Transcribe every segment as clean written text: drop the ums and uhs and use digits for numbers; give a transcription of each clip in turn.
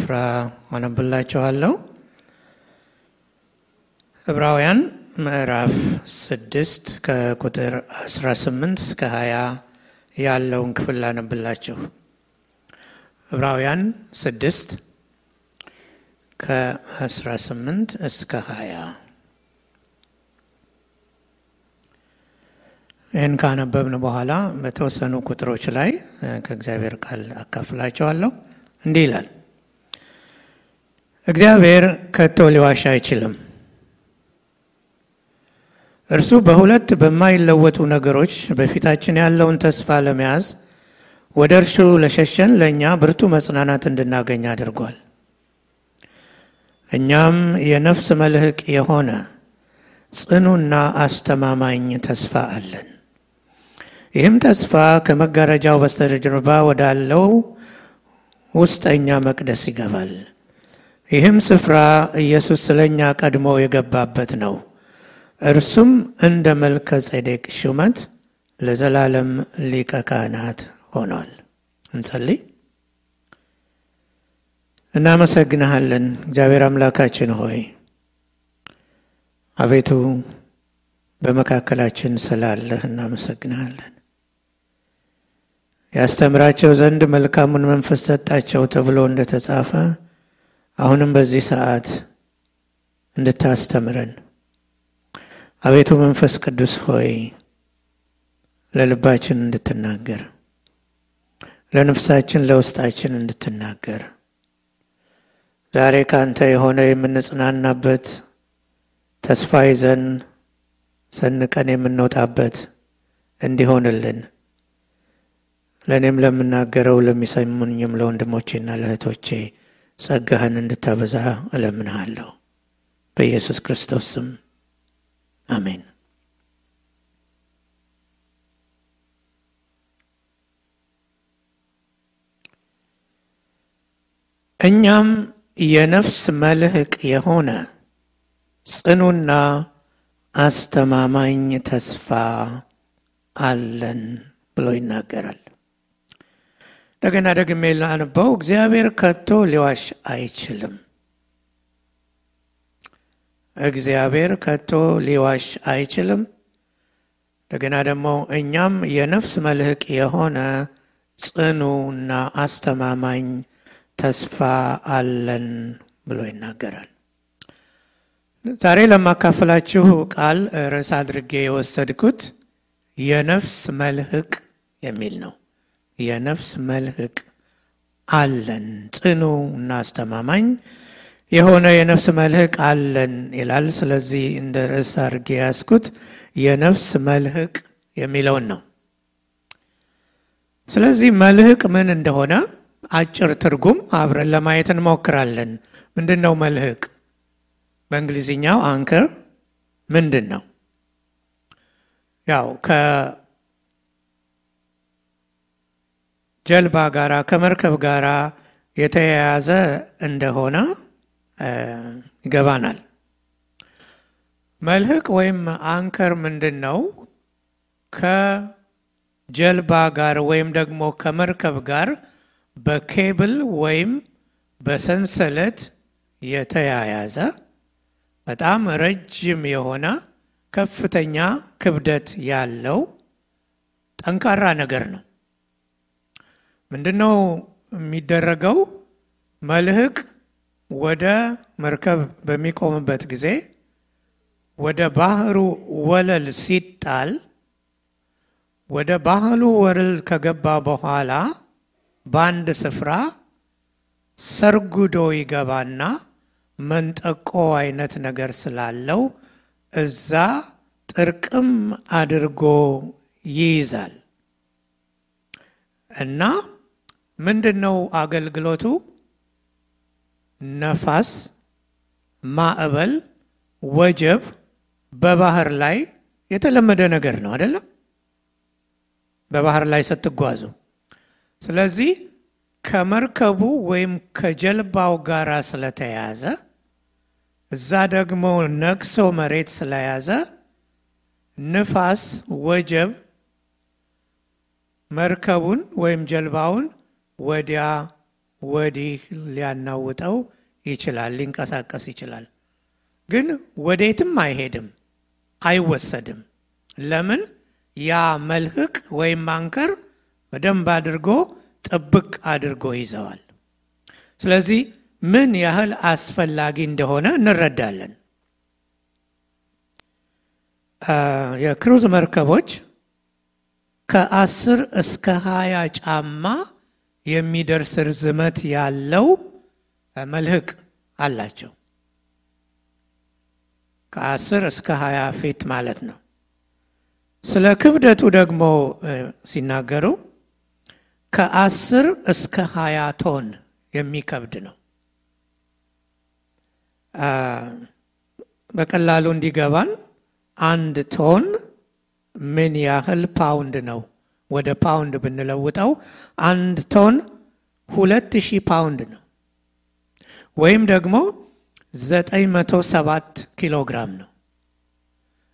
ስፍራ አነብላችኋለሁ። ዕብራውያን ምዕራፍ 6 ከቁጥር 18 እስከ 20 ያለውን ክፍል አነብላችሁ። ዕብራውያን 6 ከ18 እስከ 20 ይህን ካነበብን በኋላ በተወሰኑ ቁጥሮች ላይ ከእግዚአብሔር ቃል አካፍላችኋለሁ። እንዲህ ይላል። እግዚአብሔር ከቶ ሊዋሽ አይችልም። እርሱ በሁለት በማይለወጡ ነገሮች በፊታችን ያለውን ተስፋ ለመያዝ ወደ እርሱ ለሸሸን ለእኛ ብርቱ መጽናናት እንድናገኝ አድርጓል። እኛም የነፍስ መልህቅ የሆነ ጽኑና አስተማማኝ ተስፋ አለን። ይህም ተስፋ ከመጋረጃው በስተጀርባ ወዳለው ውስጠኛ መቅደስ ይገባል። ይህም ስፍራ ኢየሱስ ስለኛ ቀድሞ የገባበት ነው። እርሱም እንደ መልከ ጼዴቅ ሹመት ለዘላለም ሊቀ ካህናት ሆኗል። እንጸልይ። እናመሰግንሃለን እግዚአብሔር አምላካችን ሆይ፣ አቤቱ በመካከላችን ስላለህ እናመሰግንሃለን። ያስተምራቸው ዘንድ መልካሙን መንፈስ ሰጣቸው ተብሎ እንደተጻፈ አሁንም በዚህ ሰዓት እንድታስተምረን አቤቱ መንፈስ ቅዱስ ሆይ ለልባችን እንድትናገር፣ ለነፍሳችን ለውስጣችን እንድትናገር፣ ዛሬ ካንተ የሆነ የምንጽናናበት ተስፋ ይዘን ሰንቀን የምንወጣበት እንዲሆንልን ለእኔም ለምናገረው ለሚሰሙኝም ለወንድሞቼና ለእህቶቼ ጸጋህን እንድታበዛ እለምንሃለሁ በኢየሱስ ክርስቶስ ስም አሜን። እኛም የነፍስ መልህቅ የሆነ ጽኑና አስተማማኝ ተስፋ አለን ብሎ ይናገራል። እንደገና ደግሜ ላንበው። እግዚአብሔር ከቶ ሊዋሽ አይችልም። እግዚአብሔር ከቶ ሊዋሽ አይችልም። እንደገና ደግሞ እኛም የነፍስ መልህቅ የሆነ ጽኑና አስተማማኝ ተስፋ አለን ብሎ ይናገራል። ዛሬ ለማካፈላችሁ ቃል ርዕስ አድርጌ የወሰድኩት የነፍስ መልህቅ የሚል ነው። የነፍስ መልህቅ አለን፣ ጽኑ እና አስተማማኝ የሆነ የነፍስ መልህቅ አለን ይላል። ስለዚህ እንደ ርዕስ አድርጌ ያስኩት የነፍስ መልህቅ የሚለውን ነው። ስለዚህ መልህቅ ምን እንደሆነ አጭር ትርጉም አብረን ለማየት እንሞክራለን። ምንድነው መልህቅ? በእንግሊዝኛው አንከር ምንድን ነው? ያው ከጀልባ ጋራ ከመርከብ ጋራ የተያያዘ እንደሆነ ይገባናል። መልህቅ ወይም አንከር ምንድን ነው? ከጀልባ ጋር ወይም ደግሞ ከመርከብ ጋር በኬብል ወይም በሰንሰለት የተያያዘ በጣም ረጅም የሆነ ከፍተኛ ክብደት ያለው ጠንካራ ነገር ነው። ምንድነው የሚደረገው? መልህቅ ወደ መርከብ በሚቆምበት ጊዜ ወደ ባህሩ ወለል ሲጣል ወደ ባህሩ ወለል ከገባ በኋላ በአንድ ስፍራ ሰርጉዶ ይገባና መንጠቆ አይነት ነገር ስላለው እዛ ጥርቅም አድርጎ ይይዛል። እና ምንድነው አገልግሎቱ? ነፋስ፣ ማዕበል፣ ወጀብ በባህር ላይ የተለመደ ነገር ነው አይደለም? በባህር ላይ ስትጓዙ። ስለዚህ ከመርከቡ ወይም ከጀልባው ጋር ስለተያዘ እዛ ደግሞ ነክሶ መሬት ስለያዘ ንፋስ፣ ወጀብ መርከቡን ወይም ጀልባውን ወዲያ ወዲህ ሊያናውጠው ይችላል፣ ሊንቀሳቀስ ይችላል። ግን ወዴትም አይሄድም፣ አይወሰድም። ለምን? ያ መልህቅ ወይም አንከር በደንብ አድርጎ ጥብቅ አድርጎ ይዘዋል። ስለዚህ ምን ያህል አስፈላጊ እንደሆነ እንረዳለን። የክሩዝ መርከቦች ከ10 እስከ 20 ጫማ የሚደርስ ርዝመት ያለው መልህቅ አላቸው። ከ10 እስከ 20 ፊት ማለት ነው። ስለ ክብደቱ ደግሞ ሲናገሩ ከ10 እስከ 20 ቶን የሚከብድ ነው። በቀላሉ እንዲገባን 1 ቶን ምን ያህል ፓውንድ ነው? ወደ ፓውንድ ብንለውጠው 1 ቶን 2000 ፓውንድ ነው፣ ወይም ደግሞ 907 ኪሎ ግራም ነው።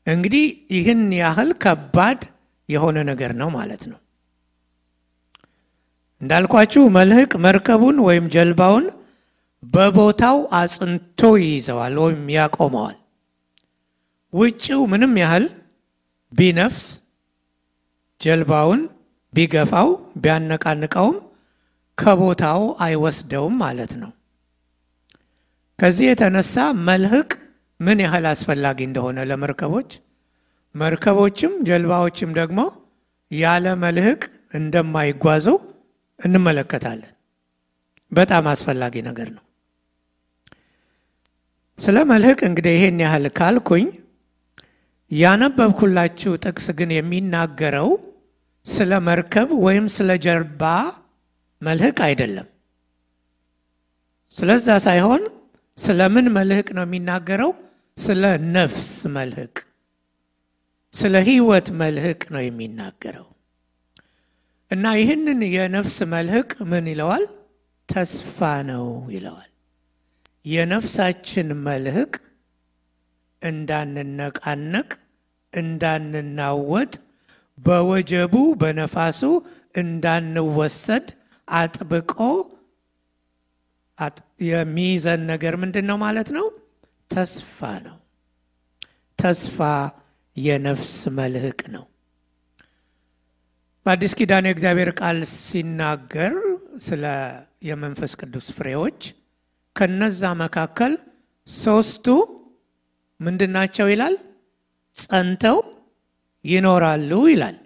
እንግዲህ ይህን ያህል ከባድ የሆነ ነገር ነው ማለት ነው። እንዳልኳችሁ መልህቅ መርከቡን ወይም ጀልባውን በቦታው አጽንቶ ይይዘዋል ወይም ያቆመዋል። ውጪው ምንም ያህል ቢነፍስ ጀልባውን ቢገፋው ቢያነቃንቀውም ከቦታው አይወስደውም ማለት ነው። ከዚህ የተነሳ መልህቅ ምን ያህል አስፈላጊ እንደሆነ ለመርከቦች፣ መርከቦችም ጀልባዎችም ደግሞ ያለ መልህቅ እንደማይጓዙ እንመለከታለን። በጣም አስፈላጊ ነገር ነው። ስለ መልህቅ እንግዲህ ይሄን ያህል ካልኩኝ፣ ያነበብኩላችሁ ጥቅስ ግን የሚናገረው ስለ መርከብ ወይም ስለ ጀልባ መልህቅ አይደለም። ስለዛ ሳይሆን ስለምን መልህቅ ነው የሚናገረው? ስለ ነፍስ መልህቅ፣ ስለ ህይወት መልህቅ ነው የሚናገረው። እና ይህንን የነፍስ መልህቅ ምን ይለዋል? ተስፋ ነው ይለዋል። የነፍሳችን መልህቅ እንዳንነቃነቅ፣ እንዳንናወጥ፣ በወጀቡ በነፋሱ እንዳንወሰድ አጥብቆ የሚይዘን ነገር ምንድን ነው ማለት ነው? ተስፋ ነው። ተስፋ የነፍስ መልህቅ ነው። በአዲስ ኪዳን የእግዚአብሔር ቃል ሲናገር ስለ የመንፈስ ቅዱስ ፍሬዎች ከነዛ መካከል 3ቱ ምንድናቸው ይላል? ጸንተው ይኖራሉ ይላል።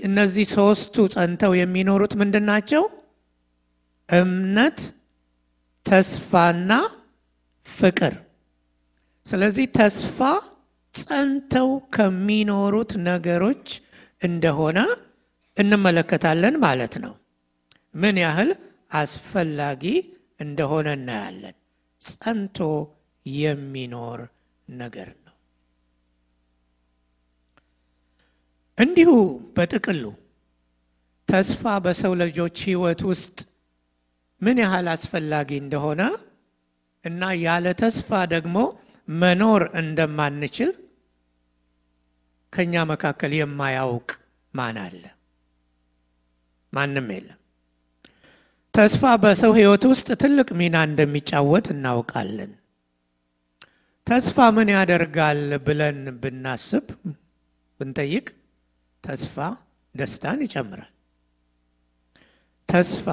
እነዚህ 3ቱ ጸንተው የሚኖሩት ምንድናቸው? እምነት፣ ተስፋና ፍቅር። ስለዚህ ተስፋ ጸንተው ከሚኖሩት ነገሮች እንደሆነ እንመለከታለን ማለት ነው። ምን ያህል አስፈላጊ እንደሆነ እናያለን። ጸንቶ የሚኖር ነገር ነው። እንዲሁ በጥቅሉ ተስፋ በሰው ልጆች ህይወት ውስጥ ምን ያህል አስፈላጊ እንደሆነ እና ያለ ተስፋ ደግሞ መኖር እንደማንችል ከኛ መካከል የማያውቅ ማን አለ? ማንም የለም። ተስፋ በሰው ህይወት ውስጥ ትልቅ ሚና እንደሚጫወት እናውቃለን። ተስፋ ምን ያደርጋል ብለን ብናስብ ብንጠይቅ፣ ተስፋ ደስታን ይጨምራል። ተስፋ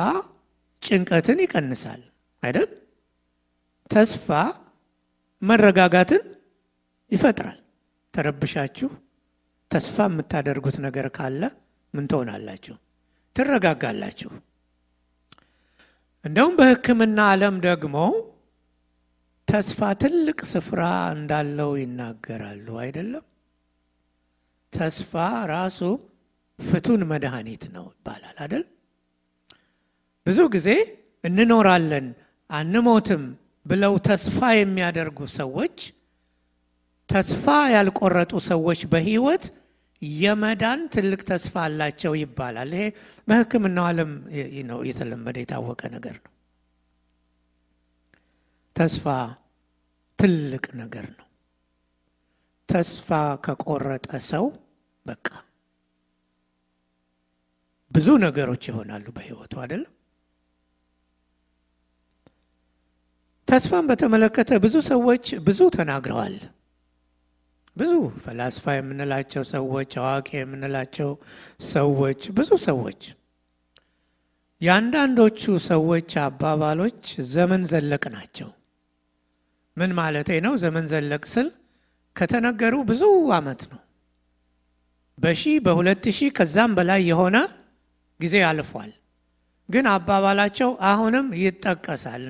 ጭንቀትን ይቀንሳል አይደል? ተስፋ መረጋጋትን ይፈጥራል። ተረብሻችሁ ተስፋ የምታደርጉት ነገር ካለ ምን ትሆናላችሁ? ትረጋጋላችሁ። እንደውም በሕክምና ዓለም ደግሞ ተስፋ ትልቅ ስፍራ እንዳለው ይናገራሉ አይደለም? ተስፋ ራሱ ፍቱን መድኃኒት ነው ይባላል አይደል? ብዙ ጊዜ እንኖራለን አንሞትም ብለው ተስፋ የሚያደርጉ ሰዎች፣ ተስፋ ያልቆረጡ ሰዎች በህይወት የመዳን ትልቅ ተስፋ አላቸው ይባላል። ይሄ በሕክምናው ዓለም ነው የተለመደ የታወቀ ነገር ነው። ተስፋ ትልቅ ነገር ነው። ተስፋ ከቆረጠ ሰው በቃ ብዙ ነገሮች ይሆናሉ በህይወቱ አይደለም? ተስፋን በተመለከተ ብዙ ሰዎች ብዙ ተናግረዋል። ብዙ ፈላስፋ የምንላቸው ሰዎች፣ አዋቂ የምንላቸው ሰዎች፣ ብዙ ሰዎች ያንዳንዶቹ ሰዎች አባባሎች ዘመን ዘለቅ ናቸው። ምን ማለቴ ነው? ዘመን ዘለቅ ስል ከተነገሩ ብዙ ዓመት ነው። በ2000 ከዛም በላይ የሆነ ጊዜ አልፏል። ግን አባባላቸው አሁንም ይጠቀሳል።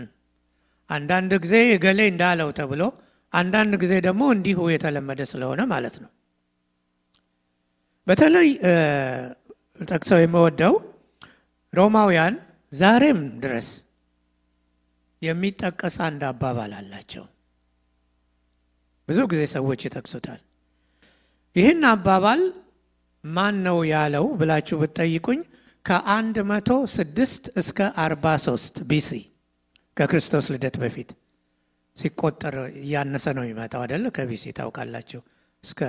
አንዳንድ ጊዜ ገሌ እንዳለው ተብሎ፣ አንዳንድ ጊዜ ደግሞ እንዲሁ የተለመደ ስለሆነ ማለት ነው። በተለይ ጠቅሰው የምወደው ሮማውያን ዛሬም ድረስ የሚጠቀስ አንድ አባባል አላቸው። ብዙ ጊዜ ሰዎች ይጠቅሱታል። ይህን አባባል ማን ነው ያለው ብላችሁ ብትጠይቁኝ ከ106 እስከ 43 ቢሲ ከክርስቶስ ልደት በፊት ሲቆጠር እያነሰ ነው የሚመጣው አይደል? ከቢሲ ታውቃላችሁ እስከ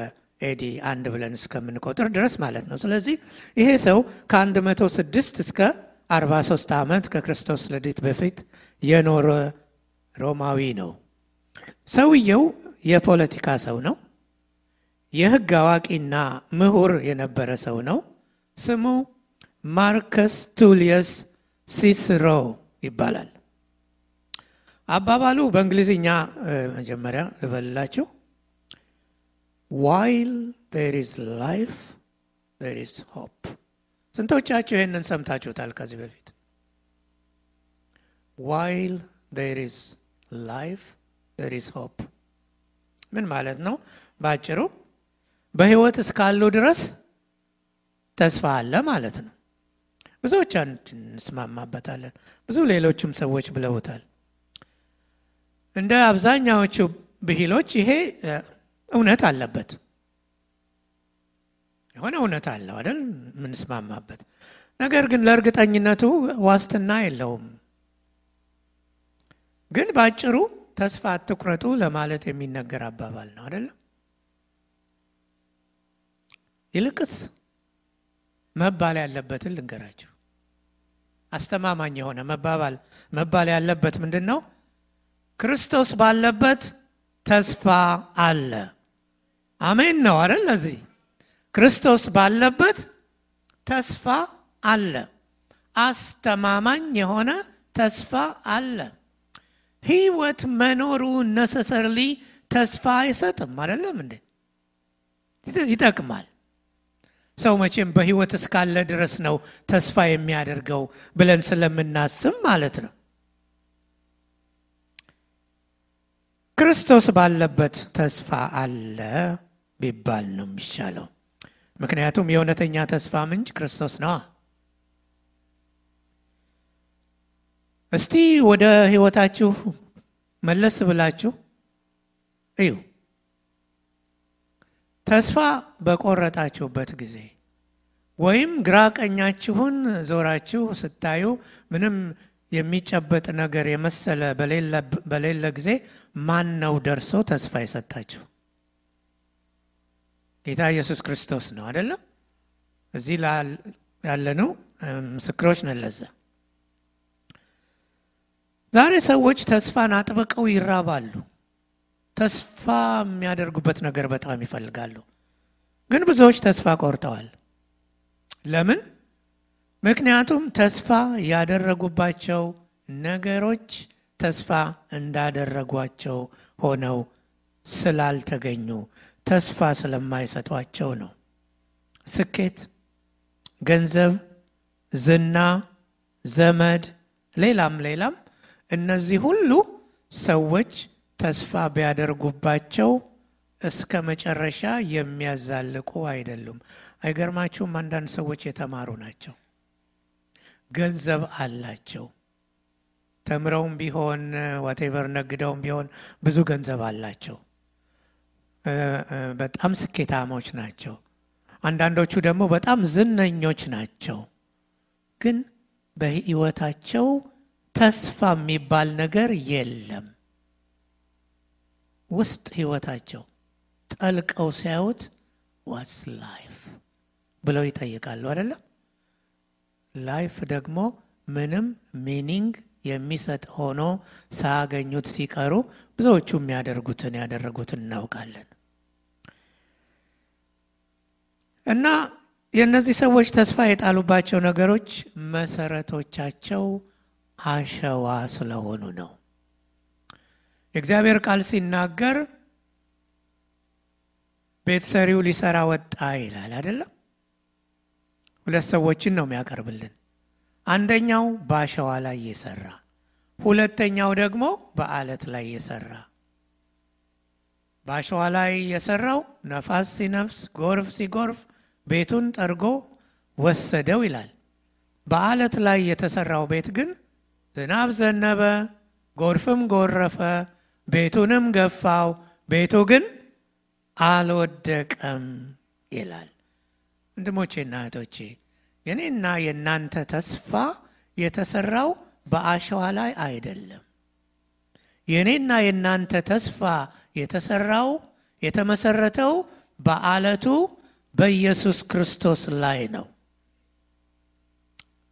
ኤዲ 1 ብለን እስከምንቆጥር ድረስ ማለት ነው። ስለዚህ ይሄ ሰው ከ106 እስከ 43 ዓመት ከክርስቶስ ልደት በፊት የኖረ ሮማዊ ነው። ሰውየው የፖለቲካ ሰው ነው። የሕግ አዋቂና ምሁር የነበረ ሰው ነው። ስሙ ማርከስ ቱሊየስ ሲስሮ ይባላል። አባባሉ በእንግሊዝኛ መጀመሪያ ልበልላችሁ። while there is life there is hope። ስንቶቻችሁ ይሄንን ሰምታችሁታል ከዚህ በፊት? while there is life there is hope ምን ማለት ነው? ባጭሩ በህይወት እስካሉ ድረስ ተስፋ አለ ማለት ነው። ብዙዎች እንስማማበታለን። ብዙ ሌሎችም ሰዎች ብለውታል። እንደ አብዛኛዎቹ ብሂሎች ይሄ እውነት አለበት። የሆነ እውነት አለው አይደል? ምንስማማበት ነገር ግን ለእርግጠኝነቱ ዋስትና የለውም። ግን ባጭሩ ተስፋ አትቁረጡ ለማለት የሚነገር አባባል ነው አይደል? ይልቅስ መባል ያለበትን ልንገራችሁ። አስተማማኝ የሆነ መባል ያለበት ምንድነው? ክርስቶስ ባለበት ተስፋ አለ። አሜን ነው አይደል? ለዚህ ክርስቶስ ባለበት ተስፋ አለ። አስተማማኝ የሆነ ተስፋ አለ። ህይወት መኖሩ ነሰሰርሊ ተስፋ አይሰጥም አይደለም እንዴ? ይጠቅማል። ሰው መቼም በህይወት እስካለ ድረስ ነው ተስፋ የሚያደርገው ብለን ስለምናስብ ማለት ነው። ክርስቶስ ባለበት ተስፋ አለ ቢባል ነው የሚሻለው። ምክንያቱም የእውነተኛ ተስፋ ምንጭ ክርስቶስ ነው። እስቲ ወደ ህይወታችሁ መለስ ብላችሁ እዩ። ተስፋ በቆረጣችሁበት ጊዜ ወይም ግራ ቀኛችሁን ዞራችሁ ስታዩ ምንም የሚጨበጥ ነገር የመሰለ በሌለ ጊዜ ማን ነው ደርሶ ተስፋ የሰጣችሁ? ጌታ ኢየሱስ ክርስቶስ ነው አይደለም? እዚህ ያለነው ምስክሮች ነን ለዛ። ዛሬ ሰዎች ተስፋን አጥብቀው ይራባሉ። ተስፋ የሚያደርጉበት ነገር በጣም ይፈልጋሉ። ግን ብዙዎች ተስፋ ቆርጠዋል። ለምን? ምክንያቱም ተስፋ ያደረጉባቸው ነገሮች ተስፋ እንዳደረጓቸው ሆነው ስላልተገኙ ተስፋ ስለማይሰጧቸው ነው። ስኬት፣ ገንዘብ፣ ዝና፣ ዘመድ፣ ሌላም እነዚህ ሁሉ ሰዎች ተስፋ ቢያደርጉባቸው እስከ መጨረሻ የሚያዛልቁ አይደሉም። አይገርማችሁም? አንዳንድ ሰዎች የተማሩ ናቸው፣ ገንዘብ አላቸው፣ ተምረውም ቢሆን whatever ነግደውም ቢሆን ብዙ ገንዘብ አላቸው፣ በጣም ስኬታሞች ናቸው። አንዳንዶቹ ደግሞ በጣም ዝነኞች ናቸው። ግን በህይወታቸው ተስፋ የሚባል ነገር የለም። ውስጥ ህይወታቸው ጠልቀው ሲያዩት what's life ብለው ይጠይቃሉ አይደለም? ላይፍ ደግሞ ምንም ሚኒንግ የሚሰጥ ሆኖ ሳያገኙት ሲቀሩ ብዙዎቹ ያደረጉትን እናውቃለን። እና የእነዚህ ሰዎች ተስፋ የጣሉባቸው ነገሮች መሰረቶቻቸው አሸዋ ስለሆኑ ነው። የእግዚአብሔር ቃል ሲናገር ቤት ሰሪው ሊሰራ ወጣ ይላል አይደለም? ሁለት ሰዎችን ነው የሚያቀርብልን። አንደኛው በአሸዋ ላይ የሰራ፣ ሁለተኛው ደግሞ በአለት ላይ የሰራ። በአሸዋ ላይ የሰራው ነፋስ ሲነፍስ፣ ጎርፍ ሲጎርፍ ቤቱን ጠርጎ ወሰደው ይላል። በአለት ላይ የተሰራው ቤት ግን ዝናብ ዘነበ፣ ጎርፍም ጎረፈ፣ ቤቱንም ገፋው፣ ቤቱ ግን አልወደቀም ይላል። ወንድሞቼና እህቶቼ የኔና የናንተ ተስፋ የተሰራው በአሸዋ ላይ አይደለም። የኔና የናንተ ተስፋ የተሰራው የተመሰረተው በአለቱ በኢየሱስ ክርስቶስ ላይ ነው።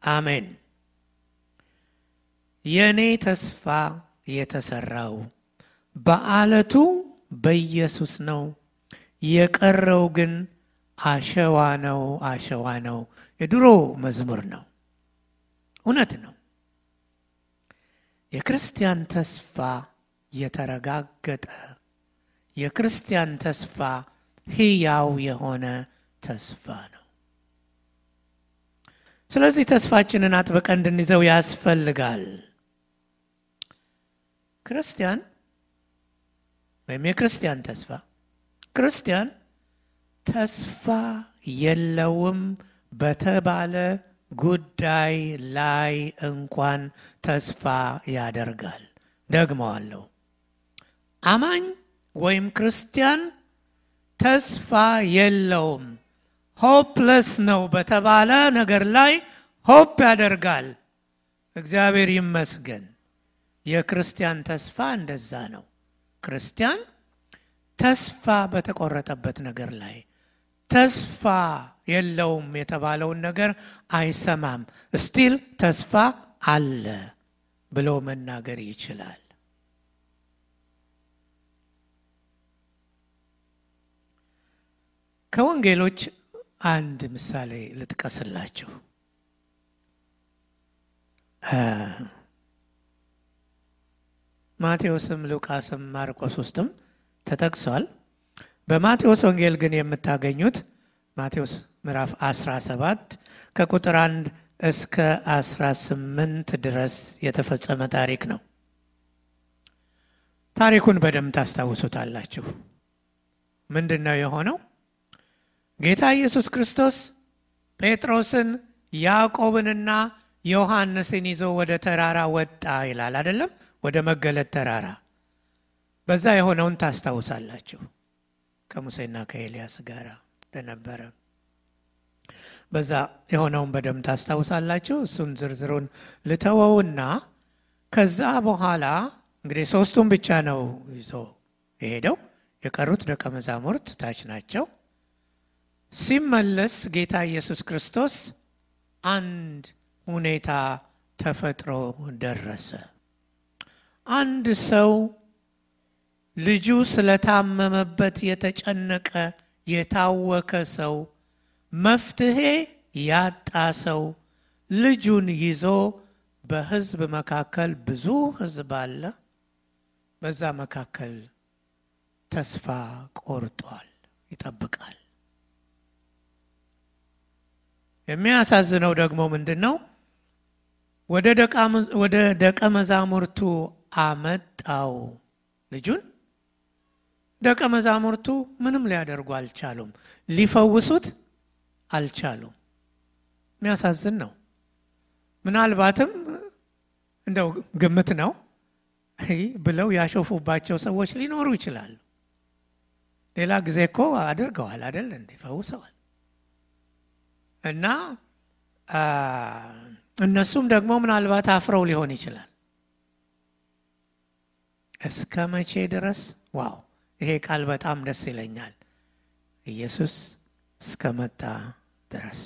አሜን። የኔ ተስፋ የተሰራው በአለቱ በኢየሱስ ነው። የቀረው ግን አሸዋ ነው። የድሮ መዝሙር ነው። እውነት ነው። የክርስቲያን ተስፋ የተረጋገጠ፣ የክርስቲያን ተስፋ ሕያው የሆነ ተስፋ ነው። ስለዚህ ተስፋችንን አጥብቀን እንድንይዘው ያስፈልጋል። ክርስቲያን ወይም የክርስቲያን ተስፋ ክርስቲያን ተስፋ የለውም በተባለ ጉዳይ ላይ እንኳን ተስፋ ያደርጋል። ደግመዋለሁ። አማኝ ወይም ክርስቲያን ተስፋ የለውም፣ ሆፕለስ ነው በተባለ ነገር ላይ ሆፕ ያደርጋል። እግዚአብሔር ይመስገን። የክርስቲያን ተስፋ እንደዛ ነው። ክርስቲያን ተስፋ በተቆረጠበት ነገር ላይ ተስፋ የለውም የተባለውን ነገር አይሰማም። ስቲል ተስፋ አለ ብሎ መናገር ይችላል። ከወንጌሎች አንድ ምሳሌ ልጥቀስላችሁ። ማቴዎስም ሉቃስም ማርቆስ ውስጥም ተጠቅሷል። በማቴዎስ ወንጌል ግን የምታገኙት ማቴዎስ ምዕራፍ 17 ከቁጥር 1 እስከ 18 ድረስ የተፈጸመ ታሪክ ነው። ታሪኩን በደንብ ታስታውሱታላችሁ። ምንድነው የሆነው? ጌታ ኢየሱስ ክርስቶስ ጴጥሮስን ያዕቆብንና ዮሐንስን ይዞ ወደ ተራራ ወጣ ይላል አይደለም? ወደ መገለጥ ተራራ። በዛ የሆነውን ታስታውሳላችሁ። ከሙሴና ከኤልያስ ጋር ተነበረ። በዛ የሆነውን በደንብ ታስታውሳላችሁ። እሱን ዝርዝሩን ልተወውና ከዛ በኋላ እንግዲህ ሶስቱን ብቻ ነው ይዞ የሄደው። የቀሩት ደቀ መዛሙርት ታች ናቸው። ሲመለስ ጌታ ኢየሱስ ክርስቶስ አንድ ሁኔታ ተፈጥሮ ደረሰ። አንድ ሰው ልጁ ስለታመመበት የተጨነቀ የታወከ ሰው፣ መፍትሄ ያጣ ሰው ልጁን ይዞ በሕዝብ መካከል ብዙ ሕዝብ አለ። በዛ መካከል ተስፋ ቆርጧል፣ ይጠብቃል። የሚያሳዝነው ደግሞ ምንድነው? ወደ ደቀ መዛሙርቱ አመጣው ልጁን። ደቀ መዛሙርቱ ምንም ሊያደርጉ አልቻሉም፣ ሊፈውሱት አልቻሉም። የሚያሳዝን ነው። ምናልባትም እንደው ግምት ነው ብለው ያሾፉባቸው ሰዎች ሊኖሩ ይችላሉ። ሌላ ጊዜ እኮ አድርገዋል አይደል? ፈውሰዋል። እና እነሱም ደግሞ ምናልባት አፍረው ሊሆን ይችላል። እስከ መቼ ድረስ? ዋው! ይሄ ቃል በጣም ደስ ይለኛል። ኢየሱስ እስከመጣ ድረስ።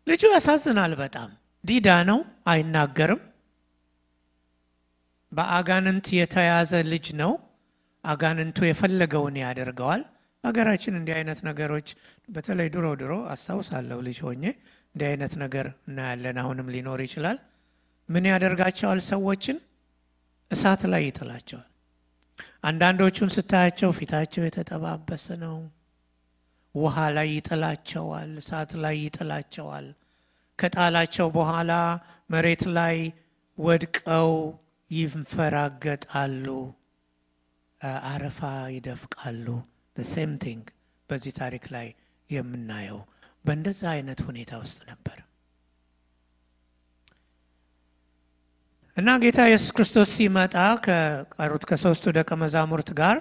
ልጁ ያሳዝናል በጣም። ዲዳ ነው፣ አይናገርም። በአጋንንት የተያዘ ልጅ ነው። አጋንንቱ የፈለገውን ያደርገዋል። ሀገራችን እንዲህ አይነት ነገሮች በተለይ ድሮ አስታውሳለሁ ልጅ ሆኜ እንዲህ አይነት ነገር እናያለን። አሁንም ሊኖር ይችላል። ምን ያደርጋቸዋል? ሰዎችን እሳት ላይ ይጥላቸዋል። አንዳንዶቹን ስታያቸው ፊታቸው የተጠባበሰ ነው። ውሃ ላይ ይጥላቸዋል፣ እሳት ላይ ይጥላቸዋል። ከጣላቸው በኋላ መሬት ላይ ወድቀው ይንፈራገጣሉ፣ አረፋ ይደፍቃሉ። the same thing በዚህ ታሪክ ላይ የምናየው በእንደዛ አይነት ሁኔታ ውስጥ ነበር። እና ጌታ ኢየሱስ ክርስቶስ ሲመጣ ከቀሩት ከሶስቱ ደቀ መዛሙርት ጋር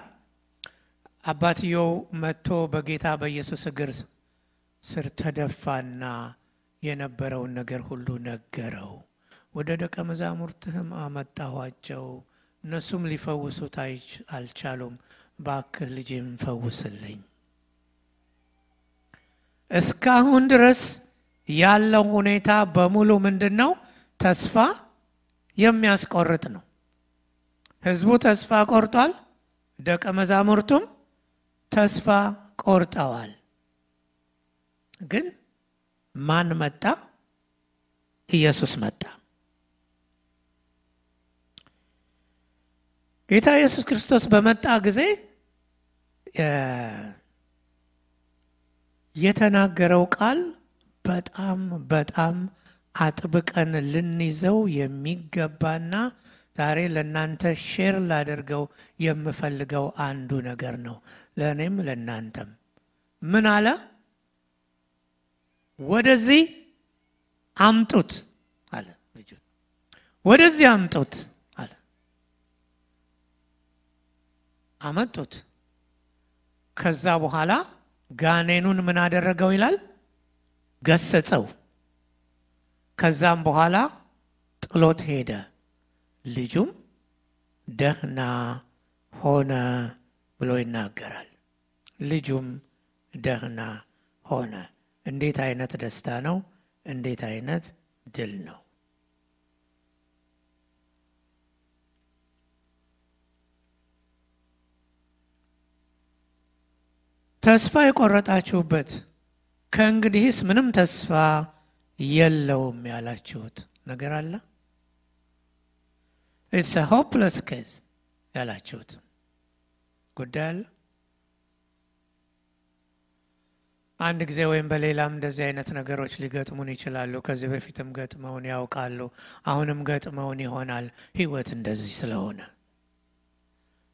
አባትየው መጥቶ በጌታ በኢየሱስ እግር ስር ተደፋና የነበረውን ነገር ሁሉ ነገረው። ወደ ደቀ መዛሙርትህም አመጣኋቸው፣ እነሱም ሊፈውሱት አልቻሉም። ባክህ ልጄን ፈውስልኝ። እስካሁን ድረስ ያለው ሁኔታ በሙሉ ምንድነው? ተስፋ የሚያስቆርጥ ነው። ህዝቡ ተስፋ ቆርጧል። ደቀ መዛሙርቱም ተስፋ ቆርጠዋል። ግን ማን መጣ? ኢየሱስ መጣ። ጌታ ኢየሱስ ክርስቶስ በመጣ ጊዜ የተናገረው ቃል በጣም አጥብቀን ልንይዘው የሚገባና ዛሬ ለእናንተ ሼር ላደርገው የምፈልገው አንዱ ነገር ነው። ለእኔም ለእናንተም ምን አለ? ወደዚህ አምጡት አለ። ልጁ ወደዚህ አምጡት አለ። አመጡት። ከዛ በኋላ ጋኔኑን ምን አደረገው ይላል? ገሰጸው። ከዛም በኋላ ጥሎት ሄደ። ልጁም ደህና ሆነ ብሎ ይናገራል። ልጁም ደህና ሆነ። እንዴት አይነት ደስታ ነው! እንዴት አይነት ድል ነው! ተስፋ የቆረጣችሁበት ከእንግዲህስ ምንም ተስፋ የለውም ያላችሁት ነገር አለ? It's a hopeless case ያላችሁት ጉዳይ አለ? አንድ ጊዜ ወይም በሌላም እንደዚህ አይነት ነገሮች ሊገጥሙን ይችላሉ። ከዚህ በፊትም ገጥመውን ያውቃሉ። አሁንም ገጥመውን ይሆናል። ህይወት እንደዚህ ስለሆነ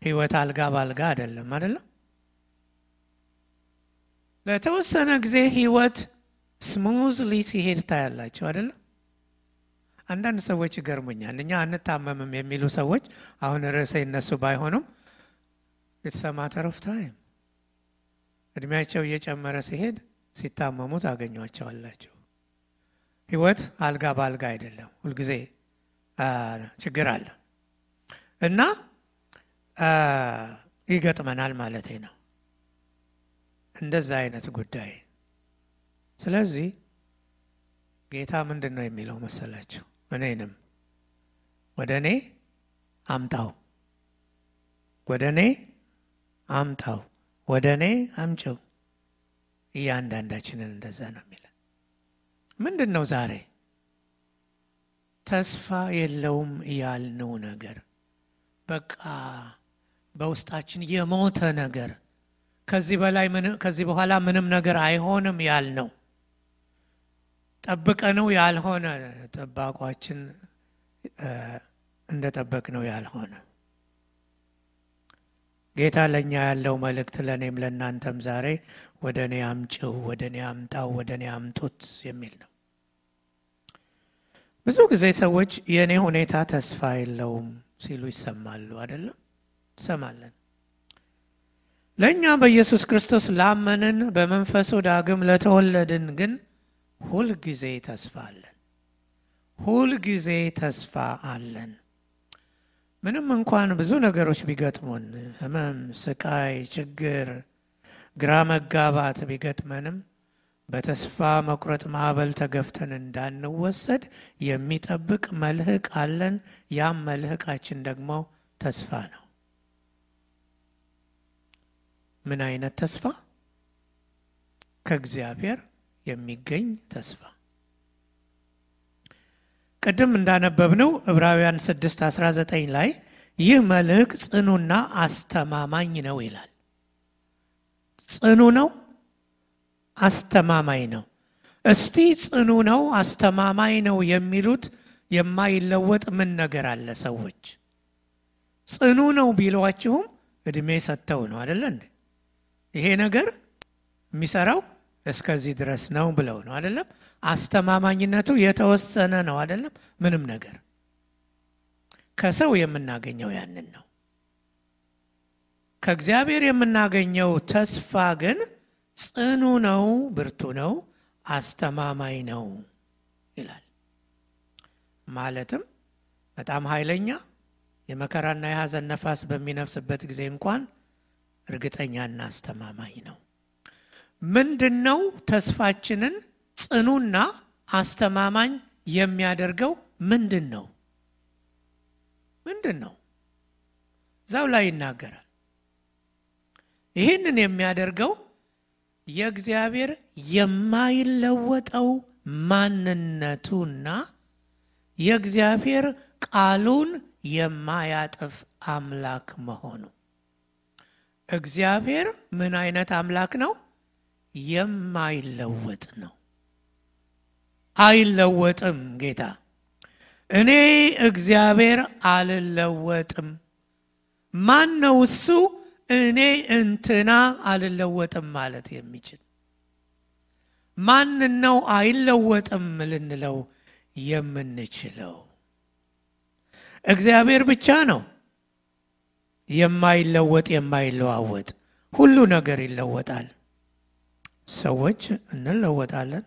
ህይወት አልጋ ባልጋ አይደለም አይደለም። ለተወሰነ ጊዜ ህይወት ስሙዝሊ ሲሄድ ታያላችሁ አይደለም። አንዳንድ ሰዎች ይገርሙኛል። እኛ አንታመምም የሚሉ ሰዎች አሁን ርዕሴ እነሱ ባይሆኑም it's a matter of time እድሜያቸው እየጨመረ ሲሄድ ሲታመሙ ታገኟቸዋላችሁ። ህይወት አልጋ ባልጋ አይደለም። ሁልጊዜ ችግር አለ እና ይገጥመናል ማለቴ ነው እንደዛ አይነት ጉዳይ። ስለዚህ ጌታ ምንድን ነው የሚለው መሰላችሁ? እኔንም ወደኔ አምጣው፣ ወደኔ አምጣው፣ ወደኔ አምጪው። እያንዳንዳችንን እንደዛ ነው የሚለው። ምንድነው ዛሬ ተስፋ የለውም ያልነው ነገር? በቃ በውስጣችን የሞተ ነገር፣ ከዚህ በኋላ ምንም ነገር አይሆንም ያልነው፣ ጠብቀነው ያልሆነ፣ ጠባቋችን እንደጠበቅነው ያልሆነ። ጌታ ለኛ ያለው መልእክት ለኔም ለናንተም ዛሬ ወደኔ አምጪው፣ ወደኔ አምጣው፣ ወደኔ አምጡት የሚል ነው። ብዙ ጊዜ ሰዎች የኔ ሁኔታ ተስፋ የለውም ሲሉ ይሰማሉ አይደለም? ሰማለን። ለኛ በኢየሱስ ክርስቶስ ላመንን በመንፈሱ ዳግም ለተወለድን ግን ሁል ጊዜ ተስፋ አለን። ሁል ጊዜ ተስፋ አለን። ምንም እንኳን ብዙ ነገሮች ቢገጥሙን፣ ህመም፣ ስቃይ፣ ችግር፣ ግራ መጋባት ቢገጥመንም በተስፋ መቁረጥ ማዕበል ተገፍተን እንዳንወሰድ የሚጠብቅ መልህቅ አለን። ያም መልህቃችን ደግሞ ተስፋ ነው። ምን አይነት ተስፋ? ከእግዚአብሔር የሚገኝ ተስፋ። ቅድም እንዳነበብነው ዕብራውያን 6:19 ላይ ይህ መልህቅ ጽኑና አስተማማኝ ነው ይላል። ጽኑ ነው፣ አስተማማኝ ነው። እስቲ ጽኑ ነው አስተማማኝ ነው የሚሉት የማይለወጥ ምን ነገር አለ? ሰዎች ጽኑ ነው ቢሏችሁም እድሜ ሰጥተው ነው አይደል እንዴ? ይሄ ነገር የሚሰራው እስከዚህ ድረስ ነው ብለው ነው አይደለም? አስተማማኝነቱ የተወሰነ ነው አይደለም? ምንም ነገር ከሰው የምናገኘው ያንን ነው። ከእግዚአብሔር የምናገኘው ተስፋ ግን ጽኑ ነው፣ ብርቱ ነው፣ አስተማማኝ ነው ይላል። ማለትም በጣም ኃይለኛ የመከራና የሐዘን ነፋስ በሚነፍስበት ጊዜ እንኳን እርግጠኛና አስተማማኝ ነው። ምንድነው ተስፋችንን ጽኑና አስተማማኝ የሚያደርገው? ምንድነው? እዛው ላይ ይናገራል። ይህንን የሚያደርገው የእግዚአብሔር የማይለወጠው ማንነቱና የእግዚአብሔር ቃሉን የማያጥፍ አምላክ መሆኑ። እግዚአብሔር ምን አይነት አምላክ ነው? የማይለወጥ ነው። አይለወጥም ጌታ። እኔ እግዚአብሔር አልለወጥም። ማን ነው እሱ እኔ እንትና አልለወጥም ማለት የሚችል? ማን ነው አይለወጥም ልንለው የምንችለው? እግዚአብሔር ብቻ ነው የማይለወጥ የማይለዋወጥ። ሁሉ ነገር ይለወጣል። ሰዎች እንለወጣለን።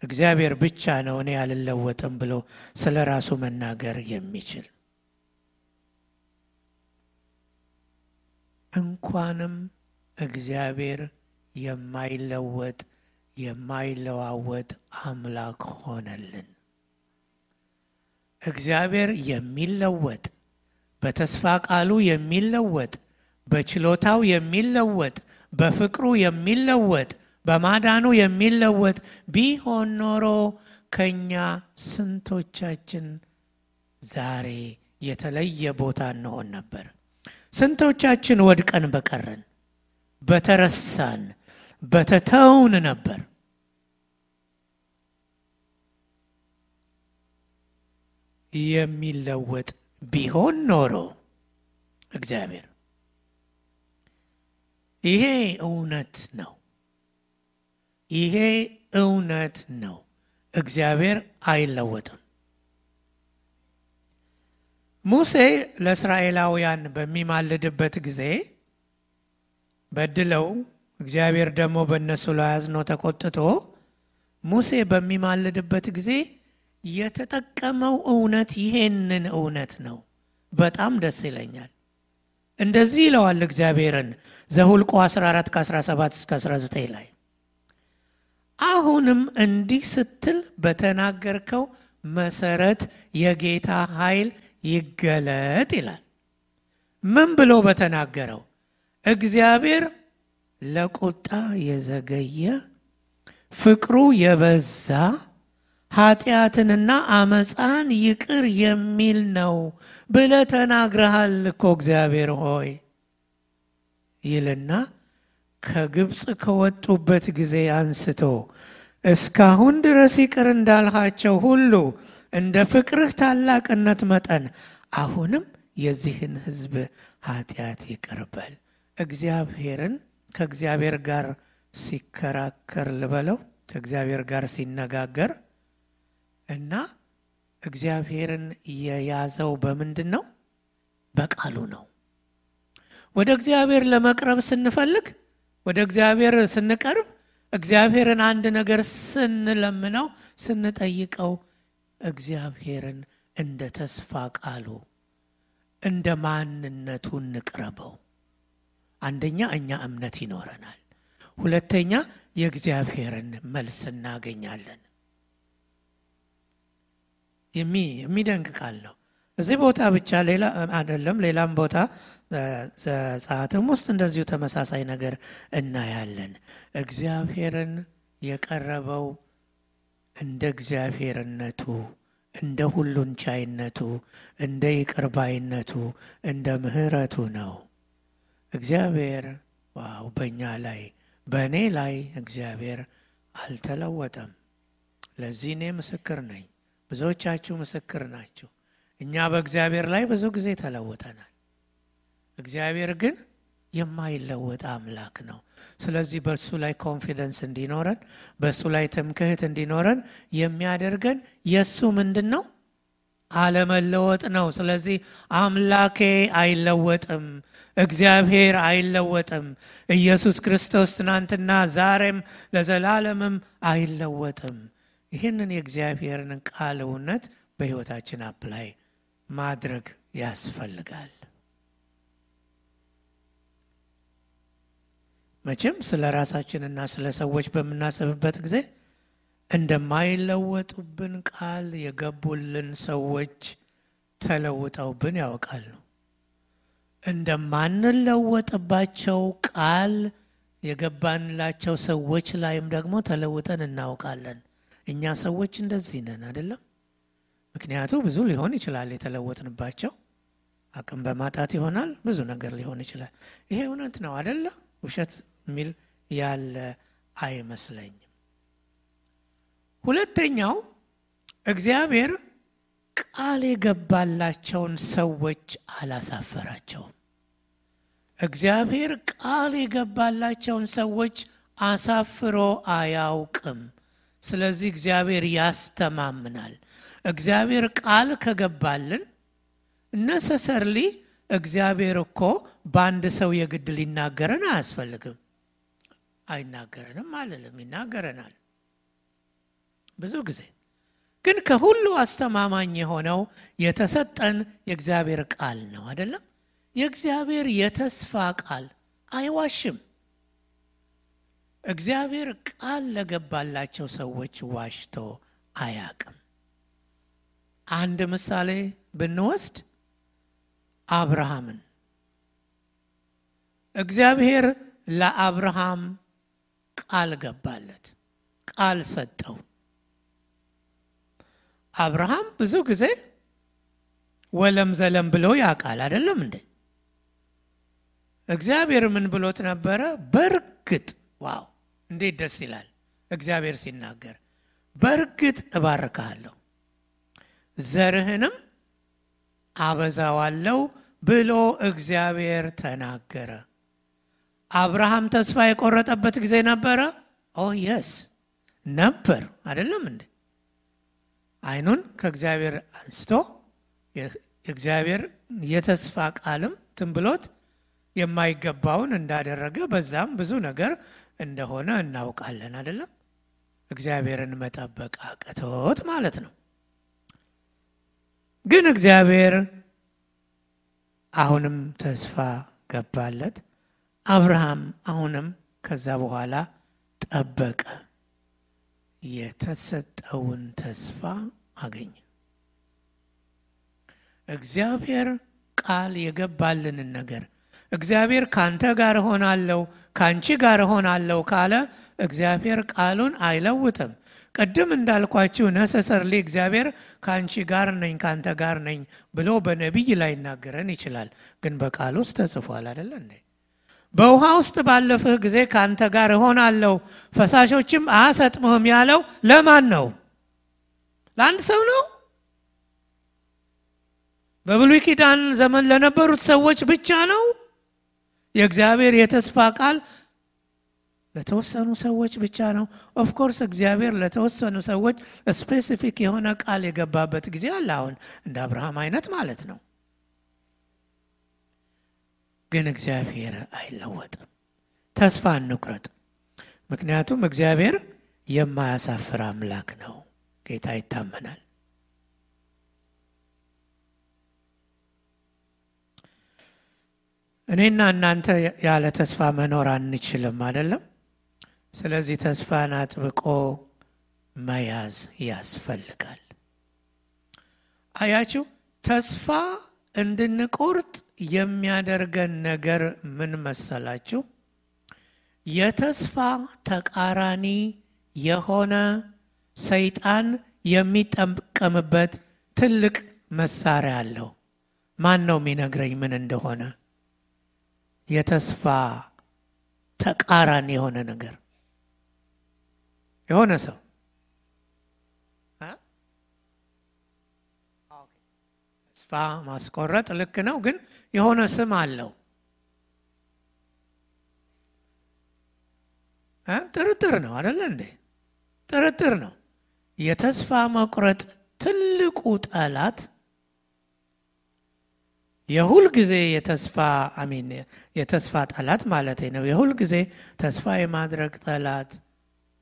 እግዚአብሔር ብቻ ነው እኔ አልለወጥም ብሎ ስለ ራሱ መናገር የሚችል። እንኳንም እግዚአብሔር የማይለወጥ የማይለዋወጥ አምላክ ሆነልን። እግዚአብሔር የሚለወጥ፣ በተስፋ ቃሉ የሚለወጥ፣ በችሎታው የሚለወጥ፣ በፍቅሩ የሚለወጥ፣ በማዳኑ የሚለወጥ ቢሆን ኖሮ ከኛ ስንቶቻችን ዛሬ የተለየ ቦታ እንሆን ነበር? ስንቶቻችን ወድቀን በቀረን፣ በተረሳን፣ በተተውን ነበር? የሚለወጥ ቢሆን ኖሮ እግዚአብሔር። ይሄ እውነት ነው። ይሄ እውነት ነው። እግዚአብሔር አይለወጥም። ሙሴ ለእስራኤላውያን በሚማልድበት ጊዜ በድለው እግዚአብሔር ደግሞ በእነሱ ላይ አዝኖ ተቆጥቶ ሙሴ በሚማልድበት ጊዜ የተጠቀመው እውነት ይሄንን እውነት ነው። በጣም ደስ ይለኛል። እንደዚህ ይለዋል እግዚአብሔርን ዘኍልቍ 14:17-19 ላይ አሁንም እንዲህ ስትል በተናገርከው መሰረት የጌታ ኃይል ይገለጥ ይላል። ምን ብሎ በተናገረው? እግዚአብሔር ለቁጣ የዘገየ ፍቅሩ የበዛ ኃጢአትንና አመፃን ይቅር የሚል ነው ብለህ ተናግረሃል እኮ እግዚአብሔር ሆይ ይልና ከግብፅ ከወጡበት ጊዜ አንስቶ እስካሁን ድረስ ይቅር እንዳልሃቸው ሁሉ እንደ ፍቅርህ ታላቅነት መጠን አሁንም የዚህን ሕዝብ ኃጢአት ይቅር በል። እግዚአብሔርን ከእግዚአብሔር ጋር ሲከራከር ልበለው፣ ከእግዚአብሔር ጋር ሲነጋገር እና እግዚአብሔርን የያዘው በምንድን ነው? በቃሉ ነው። ወደ እግዚአብሔር ለመቅረብ ስንፈልግ፣ ወደ እግዚአብሔር ስንቀርብ፣ እግዚአብሔርን አንድ ነገር ስንለምነው ስንጠይቀው እግዚአብሔርን እንደ ተስፋ ቃሉ እንደ ማንነቱ እንቅረበው። አንደኛ እኛ እምነት ይኖረናል። ሁለተኛ የእግዚአብሔርን መልስ እናገኛለን። የሚደንቅ ቃል ነው። እዚህ ቦታ ብቻ ሌላ አይደለም፣ ሌላም ቦታ ዘጸአትም ውስጥ እንደዚሁ ተመሳሳይ ነገር እናያለን። እግዚአብሔርን የቀረበው እንደ እግዚአብሔርነቱ፣ እንደ ሁሉን ቻይነቱ፣ እንደ ይቅርባይነቱ፣ እንደ ምሕረቱ ነው። እግዚአብሔር በእኛ ላይ በእኔ ላይ እግዚአብሔር አልተለወጠም። ለዚህ እኔ ምስክር ነኝ፣ ብዙዎቻችሁ ምስክር ናችሁ። እኛ በእግዚአብሔር ላይ ብዙ ጊዜ ተለውጠናል። እግዚአብሔር ግን የማይለወጥ አምላክ ነው። ስለዚህ በእሱ ላይ ኮንፊደንስ እንዲኖረን፣ በእሱ ላይ ትምክህት እንዲኖረን የሚያደርገን የእሱ ምንድን ነው? አለመለወጥ ነው። ስለዚህ አምላኬ አይለወጥም፣ እግዚአብሔር አይለወጥም። ኢየሱስ ክርስቶስ ትናንትና ዛሬም ለዘላለምም አይለወጥም። ይህንን የእግዚአብሔርን ቃል እውነት በሕይወታችን አፕላይ ማድረግ ያስፈልጋል። መቼም ስለ ራሳችንና ስለ ሰዎች በምናስብበት ጊዜ እንደማይለወጡብን ቃል የገቡልን ሰዎች ተለውጠውብን ያውቃሉ። እንደማንለወጥባቸው ቃል የገባንላቸው ሰዎች ላይም ደግሞ ተለውጠን እናውቃለን። እኛ ሰዎች እንደዚህ ነን አይደለም? ምክንያቱ ብዙ ሊሆን ይችላል። የተለወጥንባቸው አቅም በማጣት ይሆናል፣ ብዙ ነገር ሊሆን ይችላል። ይሄ እውነት ነው አይደለ? ውሸት የሚል ያለ አይመስለኝም። ሁለተኛው እግዚአብሔር ቃል የገባላቸውን ሰዎች አላሳፈራቸውም። እግዚአብሔር ቃል የገባላቸውን ሰዎች አሳፍሮ አያውቅም። ስለዚህ እግዚአብሔር ያስተማምናል። እግዚአብሔር ቃል ከገባልን ነሰሰርሊ እግዚአብሔር እኮ በአንድ ሰው የግድ ሊናገረን አያስፈልግም። አይናገረንም አልልም፣ ይናገረናል ብዙ ጊዜ። ግን ከሁሉ አስተማማኝ የሆነው የተሰጠን የእግዚአብሔር ቃል ነው አይደለም? የእግዚአብሔር የተስፋ ቃል አይዋሽም። እግዚአብሔር ቃል ለገባላቸው ሰዎች ዋሽቶ አያውቅም። አንድ ምሳሌ ብንወስድ አብርሃምን፣ እግዚአብሔር ለአብርሃም ቃል ገባለት፣ ቃል ሰጠው። አብርሃም ብዙ ጊዜ ወለም ዘለም ብሎ ያውቃል አይደለም እንዴ? እግዚአብሔር ምን ብሎት ነበረ? በርግጥ ዋው እንዴት ደስ ይላል እግዚአብሔር ሲናገር፣ በርግጥ እባርካለሁ ዘርህንም አበዛዋለሁ ብሎ እግዚአብሔር ተናገረ። አብርሃም ተስፋ የቆረጠበት ጊዜ ነበረ? ኦ የስ ነበር አይደለም እንዴ? አይኑን ከእግዚአብሔር አንስቶ እግዚአብሔር የተስፋ ቃልም ትንብሎት የማይገባውን እንዳደረገ በዛም ብዙ ነገር እንደሆነ እናውቃለን አይደለም? እግዚአብሔርን መጠበቅ አቅቶት ማለት ነው። ግን እግዚአብሔር አሁንም ተስፋ ገባለት። አብርሃም አሁንም ከዛ በኋላ ጠበቀ፣ የተሰጠውን ተስፋ አገኘ። እግዚአብሔር ቃል የገባልንን ነገር እግዚአብሔር ካንተ ጋር ሆናለሁ ካንቺ ጋር ሆናለሁ ካለ እግዚአብሔር ቃሉን አይለውጥም። ቀደም እንዳልኳችሁ ነሰሰርሊ እግዚአብሔር ካንቺ ጋር ነኝ ካንተ ጋር ነኝ ብሎ በነቢይ ላይ ይናገረን ይችላል። ግን በቃል ውስጥ ተጽፏል አይደል እንዴ? በውሃ ውስጥ ባለፍህ ጊዜ ካንተ ጋር ሆናለሁ ፈሳሾችም አያሰጥምህም ያለው ለማን ነው? ለአንድ ሰው ነው? በብሉይ ኪዳን ዘመን ለነበሩት ሰዎች ብቻ ነው? የእግዚአብሔር የተስፋ ቃል ለተወሰኑ ሰዎች ብቻ ነው? ኦፍ ኮርስ እግዚአብሔር ለተወሰኑ ሰዎች ስፔሲፊክ የሆነ ቃል የገባበት ጊዜ አለ። አሁን እንደ አብርሃም አይነት ማለት ነው። ግን እግዚአብሔር አይለወጥም። ተስፋ አንቁረጥ። ምክንያቱም እግዚአብሔር የማያሳፍር አምላክ ነው። ጌታ ይታመናል። እኔና እናንተ ያለ ተስፋ መኖር አንችልም አይደለም? ስለዚህ ተስፋን አጥብቆ መያዝ ያስፈልጋል። አያችሁ፣ ተስፋ እንድንቆርጥ የሚያደርገን ነገር ምን መሰላችሁ? የተስፋ ተቃራኒ የሆነ ሰይጣን የሚጠቀምበት ትልቅ መሳሪያ አለው። ማን ነው የሚነግረኝ ምን እንደሆነ? የተስፋ ተቃራኒ የሆነ ነገር የሆነ ሰው ተስፋ ማስቆረጥ ልክ ነው፣ ግን የሆነ ስም አለው። ጥርጥር ነው አይደለ እንዴ? ጥርጥር ነው። የተስፋ መቁረጥ ትልቁ ጠላት የሁል ጊዜ የተስፋ ጠላት ማለት ነው። የሁል ጊዜ ተስፋ የማድረግ ጠላት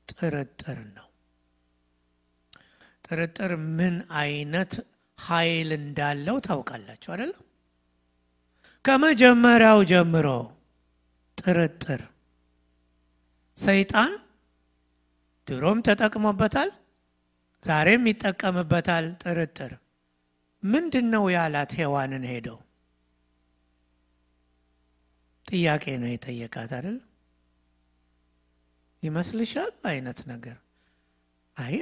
ጥርጥር ነው። ጥርጥር ምን አይነት ኃይል እንዳለው ታውቃላችሁ አይደል? ከመጀመሪያው ጀምሮ ጥርጥር ሰይጣን ድሮም ተጠቅሞበታል፣ ዛሬም ይጠቀምበታል። ጥርጥር ምንድነው ያላት? ሔዋንን ሄደው ጥያቄ ነው የጠየቃት አይደል? ይመስልሻል አይነት ነገር።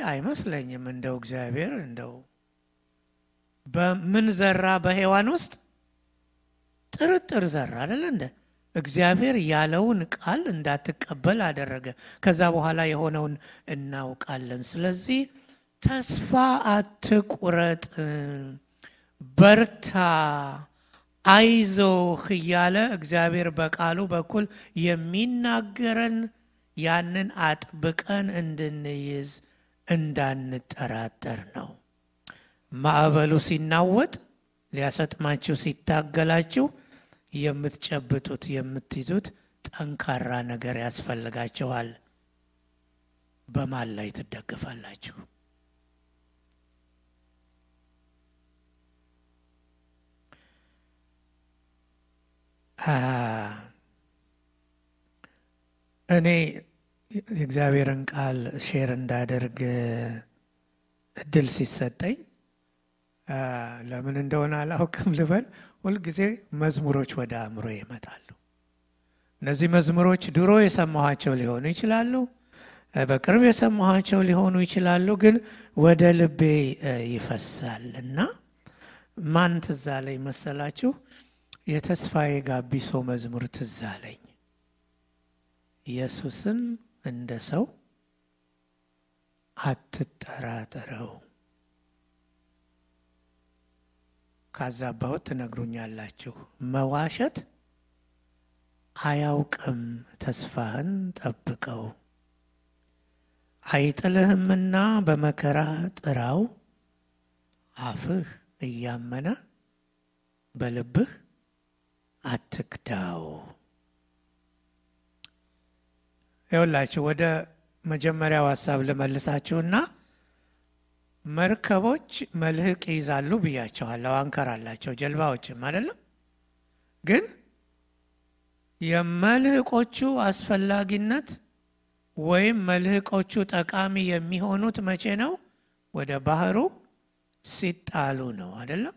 አይመስለኝም። እንደው እግዚአብሔር እንደው በምን ዘራ? በሔዋን ውስጥ ጥርጥር ዘራ አይደል እንደ እግዚአብሔር ያለውን ቃል እንዳትቀበል አደረገ። ከዛ በኋላ የሆነውን እናውቃለን። ስለዚህ ተስፋ አትቁረጥ፣ በርታ፣ አይዞህ እያለ እግዚአብሔር በቃሉ በኩል የሚናገረን ያንን አጥብቀን እንድንይዝ እንዳንጠራጠር ነው። ማዕበሉ ሲናወጥ ሊያሰጥማችሁ ሲታገላችሁ የምትጨብጡት የምትይዙት ጠንካራ ነገር ያስፈልጋችኋል። በማን ላይ ትደገፋላችሁ? እኔ የእግዚአብሔርን ቃል ሼር እንዳደርግ እድል ሲሰጠኝ ለምን እንደሆነ አላውቅም ልበል፣ ሁልጊዜ መዝሙሮች ወደ አእምሮ ይመጣሉ። እነዚህ መዝሙሮች ድሮ የሰማኋቸው ሊሆኑ ይችላሉ፣ በቅርብ የሰማኋቸው ሊሆኑ ይችላሉ፣ ግን ወደ ልቤ ይፈሳል እና ማን ትዝ አለኝ መሰላችሁ? የተስፋዬ ጋቢሶ መዝሙር ትዝ አለኝ። ኢየሱስን እንደ ሰው አትጠራጠረው። ካዛባሁት ትነግሩኛላችሁ። መዋሸት አያውቅም፣ ተስፋህን ጠብቀው። አይጥልህምና በመከራ ጥራው፣ አፍህ እያመነ በልብህ አትክዳው። ይኸውላችሁ ወደ መጀመሪያው ሐሳብ ልመልሳችሁና መርከቦች መልህቅ ይይዛሉ ብያቸዋለሁ። አንከር አላቸው ጀልባዎችም አይደለም። ግን የመልህቆቹ አስፈላጊነት ወይም መልህቆቹ ጠቃሚ የሚሆኑት መቼ ነው? ወደ ባህሩ ሲጣሉ ነው አይደለም።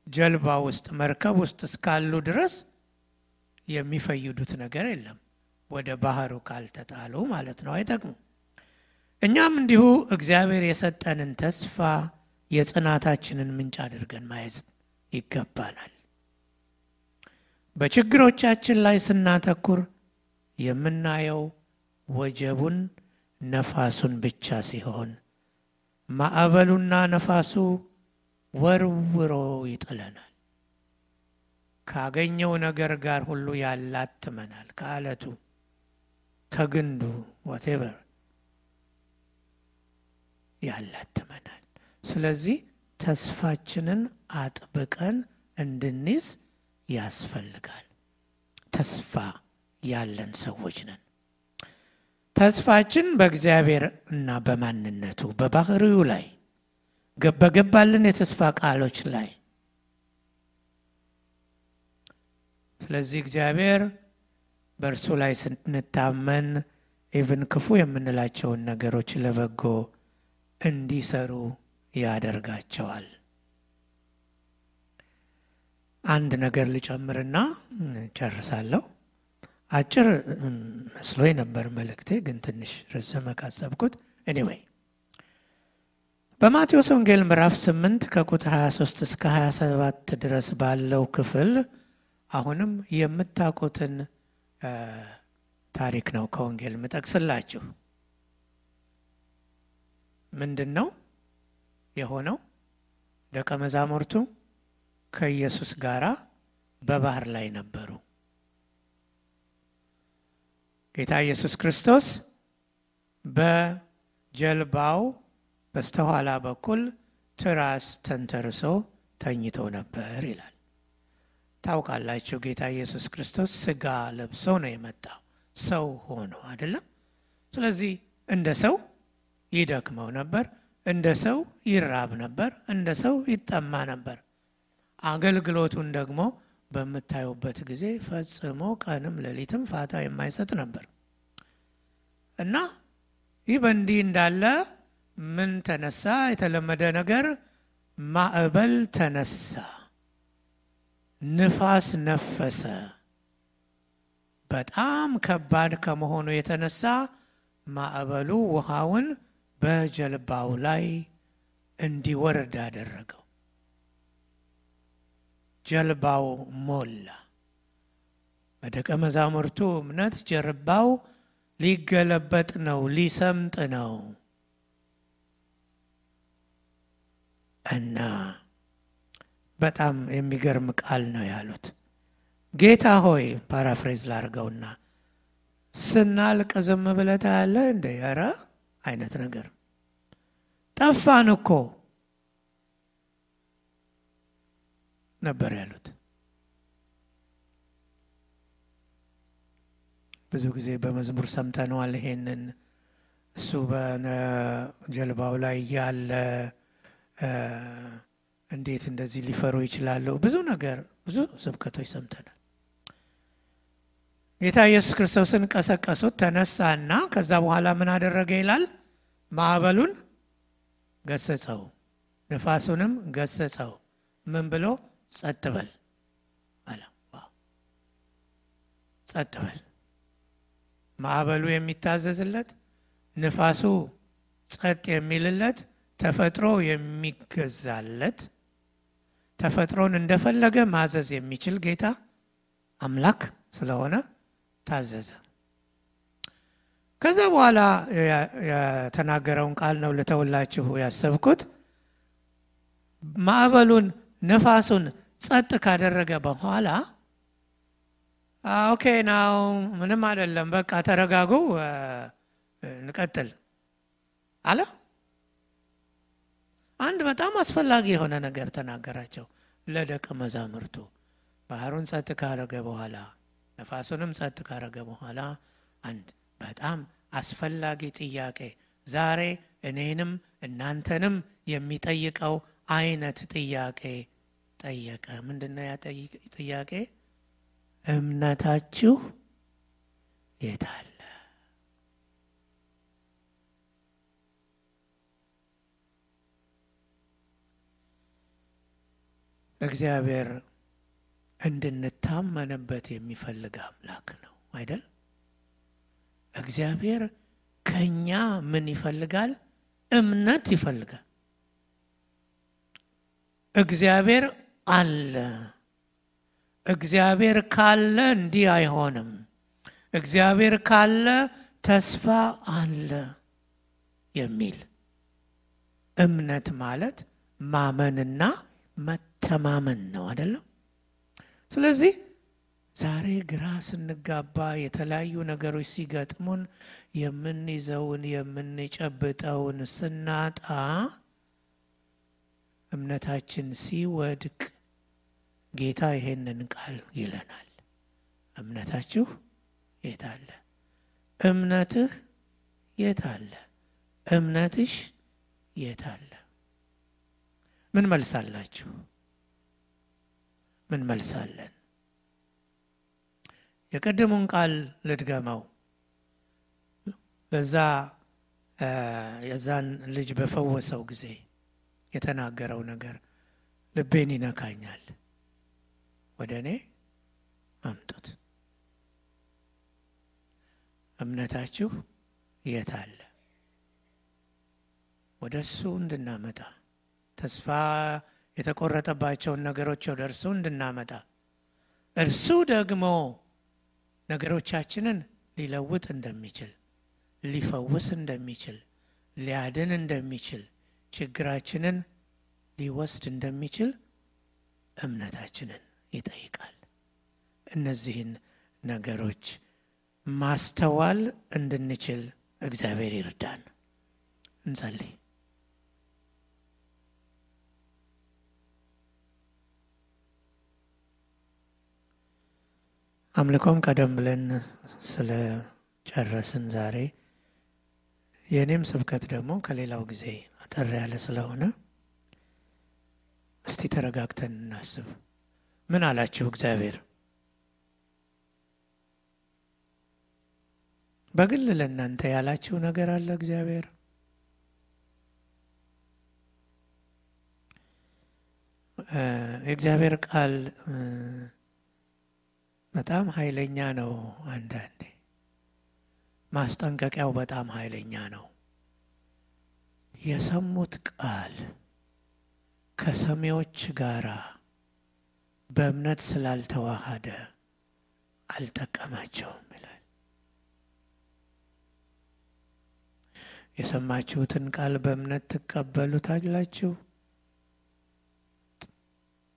ጀልባ ውስጥ መርከብ ውስጥ እስካሉ ድረስ የሚፈይዱት ነገር የለም። ወደ ባህሩ ካልተጣሉ ማለት ነው፣ አይጠቅሙ። እኛም እንዲሁ እግዚአብሔር የሰጠንን ተስፋ የጽናታችንን ምንጭ አድርገን ማየት ይገባናል። በችግሮቻችን ላይ ስናተኩር የምናየው ወጀቡን ነፋሱን ብቻ ሲሆን ማዕበሉና ነፋሱ ወርውሮ ይጥለናል። ካገኘው ነገር ጋር ሁሉ ያላትመናል። ከአለቱ ከግንዱ whatever ያላትመናል። ስለዚህ ተስፋችንን አጥብቀን እንድንይዝ ያስፈልጋል። ተስፋ ያለን ሰዎች ነን። ተስፋችን በእግዚአብሔር እና በማንነቱ በባህሪው ላይ በገባልን የተስፋ ቃሎች ላይ። ስለዚህ እግዚአብሔር በእርሱ ላይ ስንታመን ኢቭን ክፉ የምንላቸውን ነገሮች ለበጎ እንዲሰሩ ያደርጋቸዋል። አንድ ነገር ልጨምርና ጨርሳለሁ። አጭር መስሎኝ ነበር መልእክቴ፣ ግን ትንሽ ረዘመ ካሰብኩት። ኤኒዌይ በማቴዎስ ወንጌል ምዕራፍ 8 ከቁጥር 23 እስከ 27 ድረስ ባለው ክፍል አሁንም የምታውቁትን ታሪክ ነው ከወንጌል ምጠቅስላችሁ። ምንድን ነው የሆነው? ደቀ መዛሙርቱ ከኢየሱስ ጋር በባህር ላይ ነበሩ። ጌታ ኢየሱስ ክርስቶስ በጀልባው በስተኋላ በኩል ትራስ ተንተርሶ ተኝቶ ነበር ይላል። ታውቃላችሁ ጌታ ኢየሱስ ክርስቶስ ስጋ ለብሶ ነው የመጣው፣ ሰው ሆኖ አይደለም። ስለዚህ እንደ ሰው ይደክመው ነበር፣ እንደ ሰው ይራብ ነበር፣ እንደ ሰው ይጠማ ነበር። አገልግሎቱን ደግሞ በምታዩበት ጊዜ ፈጽሞ ቀንም ሌሊትም ፋታ የማይሰጥ ነበር እና ይህ በእንዲህ እንዳለ ምን ተነሳ? የተለመደ ነገር ማዕበል ተነሳ፣ ንፋስ ነፈሰ። በጣም ከባድ ከመሆኑ የተነሳ ማዕበሉ ውሃውን በጀልባው ላይ እንዲወርድ አደረገው። ጀልባው ሞላ። በደቀ መዛሙርቱ እምነት ጀልባው ሊገለበጥ ነው፣ ሊሰምጥ ነው እና በጣም የሚገርም ቃል ነው ያሉት። ጌታ ሆይ፣ ፓራፍሬዝ ላድርገውና ስናልቅ ዝም ብለህ ታያለህ እንደ ኧረ አይነት ነገር ጠፋን እኮ ነበር ያሉት። ብዙ ጊዜ በመዝሙር ሰምተነዋል ይሄንን። እሱ በጀልባው ላይ ያለ እንዴት እንደዚህ ሊፈሩ ይችላሉ? ብዙ ነገር፣ ብዙ ስብከቶች ሰምተናል። ጌታ ኢየሱስ ክርስቶስን ቀሰቀሱት፣ ተነሳና ከዛ በኋላ ምን አደረገ ይላል? ማዕበሉን ገሰጸው፣ ንፋሱንም ገሰጸው። ምን ብሎ? ጸጥ በል አለ። ጸጥ በል። ማዕበሉ የሚታዘዝለት፣ ንፋሱ ጸጥ የሚልለት፣ ተፈጥሮ የሚገዛለት፣ ተፈጥሮን እንደፈለገ ማዘዝ የሚችል ጌታ አምላክ ስለሆነ ታዘዘ። ከዛ በኋላ የተናገረውን ቃል ነው ልተውላችሁ ያሰብኩት። ማዕበሉን ነፋሱን ጸጥ ካደረገ በኋላ ኦኬ ናው ምንም አይደለም፣ በቃ ተረጋጉ፣ እንቀጥል አለ። አንድ በጣም አስፈላጊ የሆነ ነገር ተናገራቸው ለደቀ መዛሙርቱ። ባህሩን ጸጥ ካደረገ በኋላ፣ ነፋሱንም ጸጥ ካደረገ በኋላ አንድ በጣም አስፈላጊ ጥያቄ፣ ዛሬ እኔንም እናንተንም የሚጠይቀው አይነት ጥያቄ ጠየቀ። ምንድነው ያ ጥያቄ? እምነታችሁ የት አለ? እግዚአብሔር እንድንታመንበት የሚፈልግ አምላክ ነው አይደል? እግዚአብሔር ከኛ ምን ይፈልጋል? እምነት ይፈልጋል። እግዚአብሔር አለ። እግዚአብሔር ካለ እንዲህ አይሆንም። እግዚአብሔር ካለ ተስፋ አለ የሚል እምነት ማለት ማመንና መተማመን ነው አይደለም? ስለዚህ ዛሬ ግራ ስንጋባ፣ የተለያዩ ነገሮች ሲገጥሙን፣ የምንይዘውን የምንጨብጠውን ስናጣ፣ እምነታችን ሲወድቅ ጌታ ይሄንን ቃል ይለናል። እምነታችሁ የት አለ? እምነትህ የት አለ? እምነትሽ የት አለ? ምን መልሳላችሁ? ምን መልሳለን? የቀደሙን ቃል ልድገመው። ለዛ የዛን ልጅ በፈወሰው ጊዜ የተናገረው ነገር ልቤን ይነካኛል። ወደ እኔ አምጡት። እምነታችሁ የት አለ? ወደ እሱ እንድናመጣ፣ ተስፋ የተቆረጠባቸውን ነገሮች ወደ እርሱ እንድናመጣ፣ እርሱ ደግሞ ነገሮቻችንን ሊለውጥ እንደሚችል፣ ሊፈውስ እንደሚችል፣ ሊያድን እንደሚችል፣ ችግራችንን ሊወስድ እንደሚችል እምነታችንን ይጠይቃል። እነዚህን ነገሮች ማስተዋል እንድንችል እግዚአብሔር ይርዳን። እንጸልይ። አምልኮም ቀደም ብለን ስለ ጨረስን ዛሬ የኔም ስብከት ደግሞ ከሌላው ጊዜ አጠር ያለ ስለሆነ እስቲ ተረጋግተን እናስብ። ምን አላችሁ እግዚአብሔር? በግል ለእናንተ ያላችሁ ነገር አለ እግዚአብሔር? የእግዚአብሔር ቃል በጣም ኃይለኛ ነው። አንዳንዴ ማስጠንቀቂያው በጣም ኃይለኛ ነው። የሰሙት ቃል ከሰሚዎች ጋራ በእምነት ስላልተዋሃደ አልጠቀማቸውም ይላል። የሰማችሁትን ቃል በእምነት ትቀበሉታላችሁ፣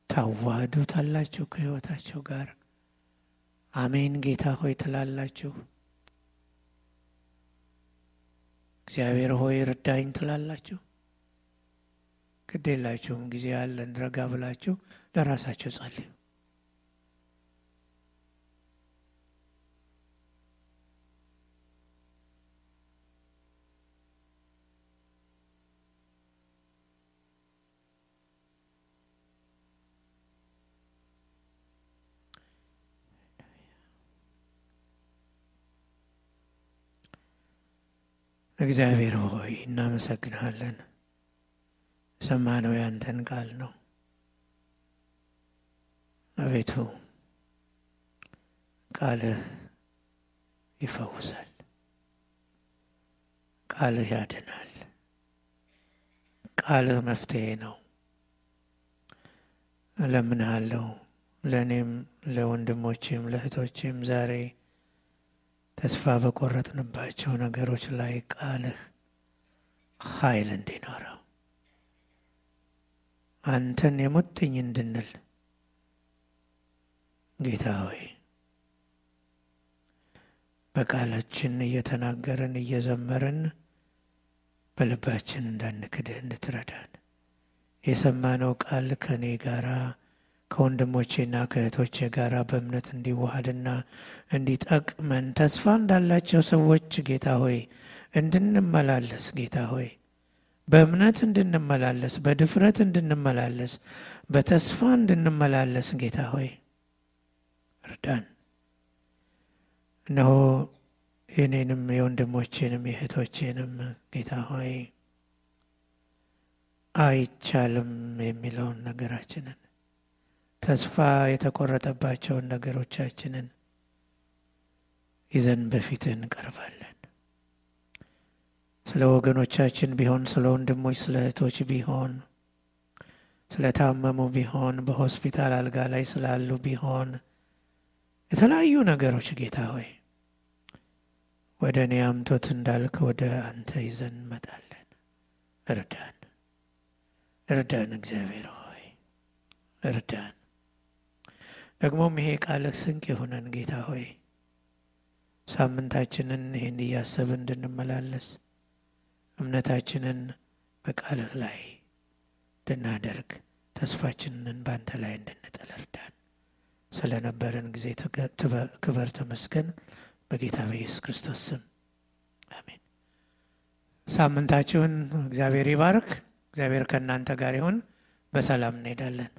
ታዋህዱታላችሁ ከሕይወታችሁ ጋር። አሜን ጌታ ሆይ ትላላችሁ። እግዚአብሔር ሆይ እርዳኝ ትላላችሁ። ግድ የላችሁም። ጊዜ ያለን ረጋ ብላችሁ ለራሳችሁ ጸልዩ። እግዚአብሔር ሆይ እናመሰግንሃለን። ሰማነው ያንተን ቃል ነው። አቤቱ ቃልህ ይፈውሳል፣ ቃልህ ያድናል፣ ቃልህ መፍትሄ ነው። እለምንሃለሁ ለእኔም ለወንድሞቼም ለእህቶቼም ዛሬ ተስፋ በቆረጥንባቸው ነገሮች ላይ ቃልህ ኃይል እንዲኖረው፣ አንተን የሙጥኝ እንድንል ጌታ ሆይ በቃላችን እየተናገርን እየዘመርን በልባችን እንዳንክድህ እንድትረዳን፣ የሰማነው ቃል ከኔ ጋራ ከወንድሞቼና ከእህቶቼ ጋር በእምነት እንዲዋሃድና እንዲጠቅመን ተስፋ እንዳላቸው ሰዎች ጌታ ሆይ እንድንመላለስ፣ ጌታ ሆይ በእምነት እንድንመላለስ፣ በድፍረት እንድንመላለስ፣ በተስፋ እንድንመላለስ ጌታ ሆይ እርዳን። እነሆ የኔንም የወንድሞቼንም የእህቶቼንም ጌታ ሆይ አይቻልም የሚለውን ነገራችንን፣ ተስፋ የተቆረጠባቸውን ነገሮቻችንን ይዘን በፊትህ እንቀርባለን። ስለ ወገኖቻችን ቢሆን፣ ስለ ወንድሞች ስለ እህቶች ቢሆን፣ ስለ ታመሙ ቢሆን፣ በሆስፒታል አልጋ ላይ ስላሉ ቢሆን፣ የተለያዩ ነገሮች ጌታ ሆይ ወደ እኔ አምጦት እንዳልክ ወደ አንተ ይዘን እንመጣለን። እርዳን፣ እርዳን እግዚአብሔር ሆይ እርዳን። ደግሞም ይሄ ቃልህ ስንቅ የሆነን ጌታ ሆይ ሳምንታችንን ይህን እያሰብን እንድንመላለስ፣ እምነታችንን በቃልህ ላይ እንድናደርግ፣ ተስፋችንን በአንተ ላይ እንድንጥል እርዳን። ስለነበረን ጊዜ ክበር ተመስገን። በጌታ በኢየሱስ ክርስቶስ ስም አሜን። ሳምንታችሁን እግዚአብሔር ይባርክ። እግዚአብሔር ከእናንተ ጋር ይሁን። በሰላም እንሄዳለን።